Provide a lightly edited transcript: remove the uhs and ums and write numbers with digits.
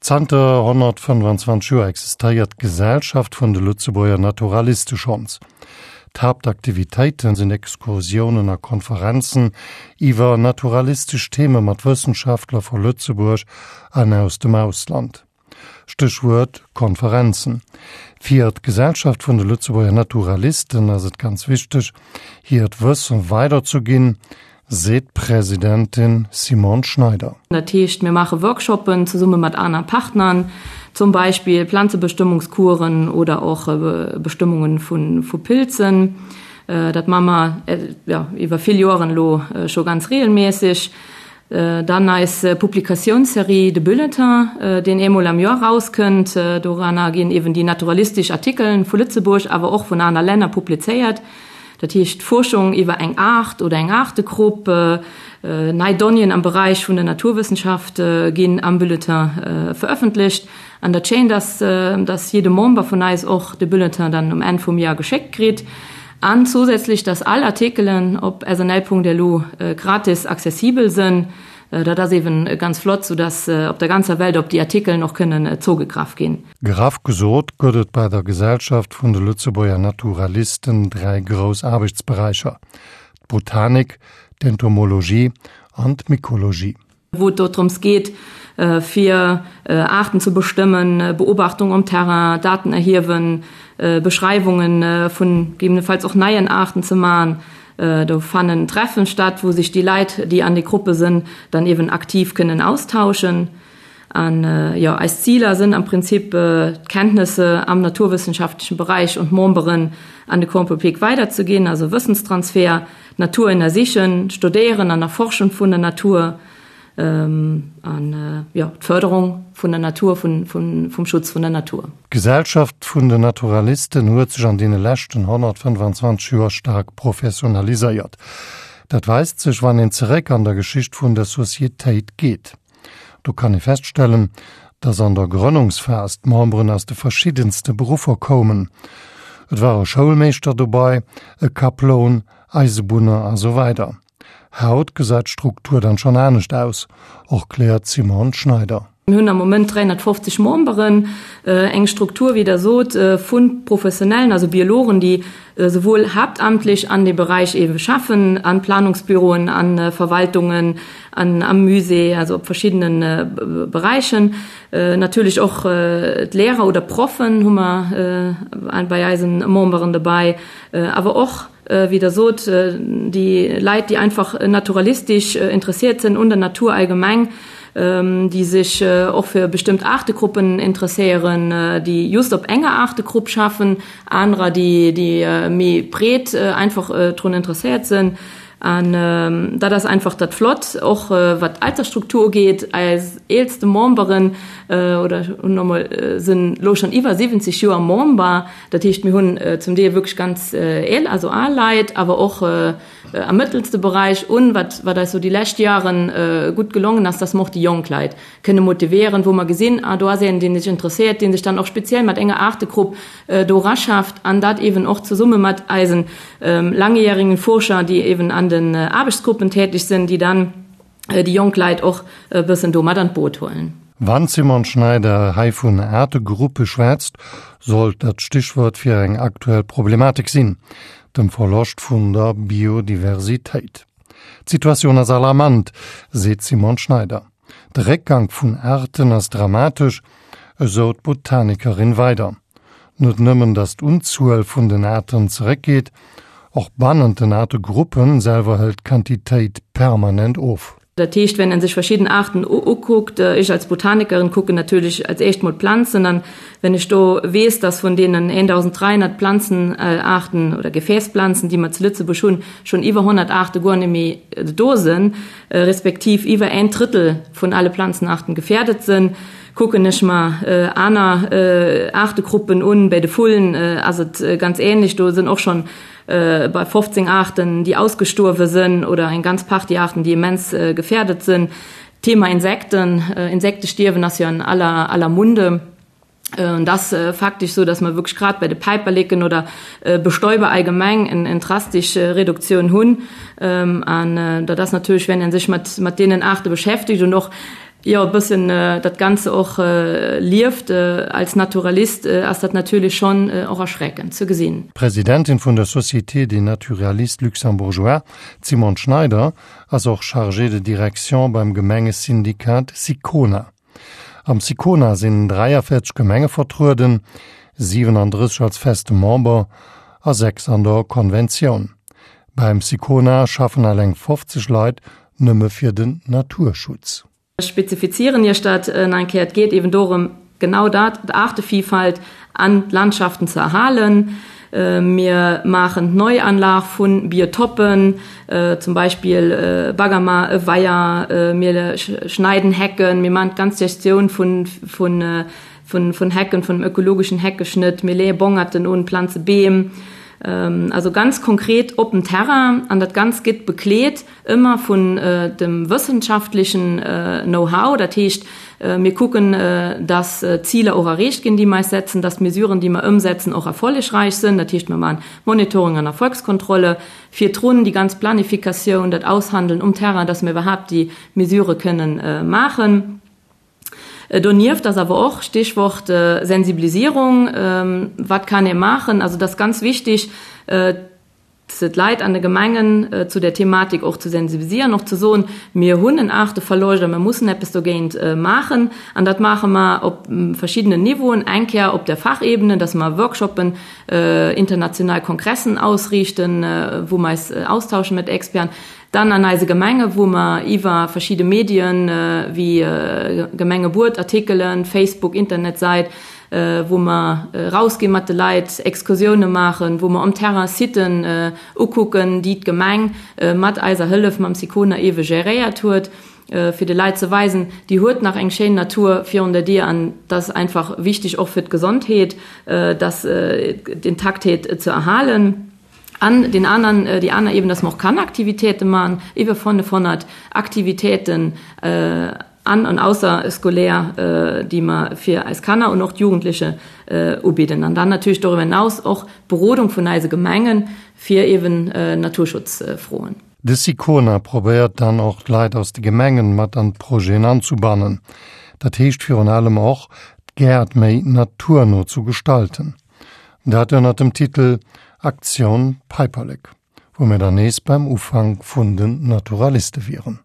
Zanter 125 Joer existéiert d'Gesellschaft vun de Lëtzebuerger Naturaliste schonns. D'Haaptaktivitéite sinn Excursiounen a Konferenzen iwwer naturalistesch Theme mat Wëssenschaftler vu Lëtzebuerg an aus dem Ausland. Stéchwuert Konferenzen. Fir d'Gesellschaft vun de Lëtzebuerger Naturalisten ass et ganz wichteg, hiert Wësse weiderzeginn, seet d'Presidentin Simone Schneider. Dat heescht, mir maache Workshoppen zesumme mat aner Partnern, zum Beispill Planzebestëmmungskuren oder och Bestëmmunge vu Pilzen. Dat maache mer iwwer vill Joren elo scho ganz reegelméisseg. Dann eis Publikatiounsserie De Bulletin, deen eemol am Joer erauskënnt. Doranner ginn eeben déi naturalistesch Artikelen vu Lëtzebuerg, awer och vun aner Länner publizéiert. Dat heescht Fuerschung iwwer eng Aart oder eng Aartegrupp, nei Donnéeën am Beräich vun der Naturwëssenschaft ginn am Bulletin verëffentlecht. An dat Schéint ass, dass jidde Member vun eis och de Bulletin dann um Enn vum Joer geschéckt kritt. An zousätzlech, dass all Artikelen op snl.lu gratis accessibel sënn. Dat ass eeben ganz flott, soudass op der ganzer Welt op déi Artikelen och kënnen zougegraff ginn. Graff gesot gëtt et bei der Gesellschaft vun de Lëtzebuerger Naturalisten 3 grouss Aarbechtsberäicher, d'Botanik, d'Entomologie an d'Mykologie. Wou et do drëms geet, fir Aarten ze bestëmmen, Beobachtung um Terrain, Daten erhiewen, Beschreiwunge vun gegebenenfalls och neien Aarten ze man. Do fannen Treffen statt, wou sech déi Leit, déi an de Gruppe sënn, dann eeben aktiv kënnen austauschen. An jo, eis Ziler sënn am Prinzip d'Kenntnisse am naturwëssenschaftlechen Beräich un d'Memberen an de Grand Public weiderzeginn, also Wëssenstransfer, d'Natur ënnersichen, d'Studéieren an Erforschen vun der Natur an jo, d'Fërderung vun der Natur, vum Schutz vun der Natur. D'Gesellschaft vun den Naturalisten huet sech an deene leschten 125 Joer staark professionaliséiert. Dat weist sech, wann een zeréck an der Geschicht vun der Societéit geet. Do kann ee feststellen, dass an der Grënnungsphas d'Memberen aus de verschiddenste Beruffer koumen. Et war e Schoulmeeschter dobei, e Kaploun, Eisebunner a sou weider. Haut gesäit d'Struktur dann schonn anescht aus, erkläert d'Simone Schneider. Mir hunn am Moment 350 Memberen, eng Struktur, wéi Der sot, vu Professionellen, also Biologen, déi souwuel haaptamtlech an deem Beräich eebe schaffen, an Planungsbüroen, a Verwaltungen, an am Musée, also op verschiddene Beräichen. Natierlech och d'Lehrer oder Proffen hu mer bei eisen Memberen dobäi, awer och, wéi Der sot, déi Leit, déi einfach naturalistesch interessiert sinn un der Natur allgemeng, déi sech och fir bestëmmt Aartegruppen interesséieren, déi just op enger Aartegrupp schaffen, anerer, déi méi breet einfach drun interesséiert sinn. An dat ass einfach dat Flott, och wat d'Altersstruktur ugeet. Eis eelste Memberen oder hunn emol sinn elo schonn iwwer 70 Joer Member. Dat heescht, mir hunn zum Deel wierklech ganz eel, also al Leit, awer och am mëttelste Beräich. Un wat wat eis sou déi lescht Jaren gutt gelongen ass, dass mer och déi jonk Leit kënne motivéieren, wou mer gesinn, ah do ass een, deen sech interesséiert, dee sech dann och speziell mat enger Aartegrupp do eraschafft an dat eeben och zesumme mat eisen langjährigen Forscher, déi eeben an den Aarbechtsgruppen tätig sinn, déi dann déi jonk Leit och e bëssen do mat an d'Boot huelen. Wann d'Simone Schneider hei vun Aartegruppe schwätzt, sollt dat d'Stichwuert fir eng aktuell Problematik sinn, dem Verloscht vun der Biodiversitéit. D'Situatioun ass alarmant, seet d'Simone Schneider. De Réckgank vun Aarten ass dramatesch, esou d'Botanikerin weider. Net nëmmen, datt d'Unzuel vun den Aarten zeréckgeet, och bannent den Aartegruppe selwer hëlt d'Quantitéit permanent of. Dat heescht, wenn en sech verschidden Aarten ukuckt, ech als Botanikerin kucken natierlech als éischt mol d'Planzen an, wenn ech do weess, dass vun deenen 1.300 Planzenaarten oder Gefäßplanzen, déi mer zu Lëtzebuerg hunn, schonn iwwer 100 Aarte guer net méi do sinn, respektiv iwwer en Drëttel vun alle Planzenaarten gefährdet sinn, kucken ech mer aner Aartegruppen un. Bei de Vullen ass et ganz ähnlech, do sinn och schonn bei 15 Aarten, déi ausgestuerwe sinn oder eng ganz Partie Aarten, déi immens gefährdet sinn. Thema Insekten, Insektestierwen ass jo an aller aller Munde. Et ass faktesch esou, dass mer wierklech grad bei de Päiperleken oder Bestäuber allgemeng eng drastesch Reduktioun hunn. An dat ass natierlech, wenn ee sech mat deenen Aarte beschäftegt und och. Jo, e bëssen dat Ganze och lieft. Als Naturalist ass dat natierlech schonn och erschreckend ze gesinn. D'Presidentin vun der Société des naturalistes luxembourgeois, d'Simone Schneider, ass och Chargée de direction beim Gemengesyndikat SICONA. Am SICONA sinn 43 Gemenge vertrueden, 37 als feste Member a 6 an der Konventioun. Beim SICONA schaffen eleng 50 Leit nëmme fir den Naturschutz. Ech spezifizieren Iech dat nach eng Kéier. Et geet eben dorëm, genau dat, d'Aartevielfalt an d'Landschaften ze erhalen. Mir maachen d'Neuanlag vu Biotoppen, zum Beispill Baggermer, e Weier, mir schneiden Hecken, mir maachen d'ganz Gestioun vun vun Hecken, vun dem ökologeschen Heckeschnëtt, mir leeë Bongerten un, planze Beem, also ganz konkret op dem Terrain. An dat Ganzt gëtt bekleet ëmmer vun dem wëssenschaftlechen Know-how. Dat heescht, mir kucken, dass d'Ziler och erreecht ginn, déi mer eis setzen, dass d'Mesuren, déi mer ëmsetzen, och erfollegreich sinn. Dat heescht, mir maachen Monitoring an Erfolgskontrolle virdrun, déi ganz Planifikatioun, dat Aushandeln um Terrain, dass mir iwwerhaapt déi Mesurë kënnen maachen. Donieft ass awer och, Stichwort Sensibilisierung, wat kann ee maachen? Also et ass ganz wichtig, d'Leit an de Gemengen zu där Thematik och ze sensibilisieren, och ze soen, mir hunn en Aarteverloscht a mir mussen eppes dogéint maachen. An dat maache mer op verschiddenen Niveauen, eng Kéier op der Fachebene, dass mer Workshoppen, international Kongressen ausriichten, wou mer eis austauschen mat Experten. Dann an eise Gemenge wou mer iwwer verschidde Medien wéi Gemengebuet, Artikelen, Facebook, Internetsäit, wou mer rausgi mat de Leit, Excursioune maachen, wou mer um Terrain Siten ukucken, déi d'Gemeng mat eiser Hëllef, mam Sicona ewe geréiert huet, fir de Leit ze weisen, déi huet nach eng schéin Natur virun der Dier an dat ass einfach wichteg och fir d'Gesondheet, dass d'Intaktheet ze erhalen. An deen aneren, déi aner Ebene, dass mer och Kanneraktivitéite maachen, iwwer 500 Aktivitéiten an an ausserscolaire, déi mer fir eis Kanner und och d'Jugendliche ubidden. An dann natierlech doriwwer hinaus och d'Berodung vun eise Gemenge fir eeben Naturschutzfroen. De Sicona probéiert dann och d'Leit aus de Gemengen mat an d'Projeten anzubannen. Dat heescht virun allem och, d'Gäert méi naturno zu gestalten. Dat ënnert dem Titel Aktion Päiperlek, wou mir dann nees beim Ufank vun den Naturaliste wieren.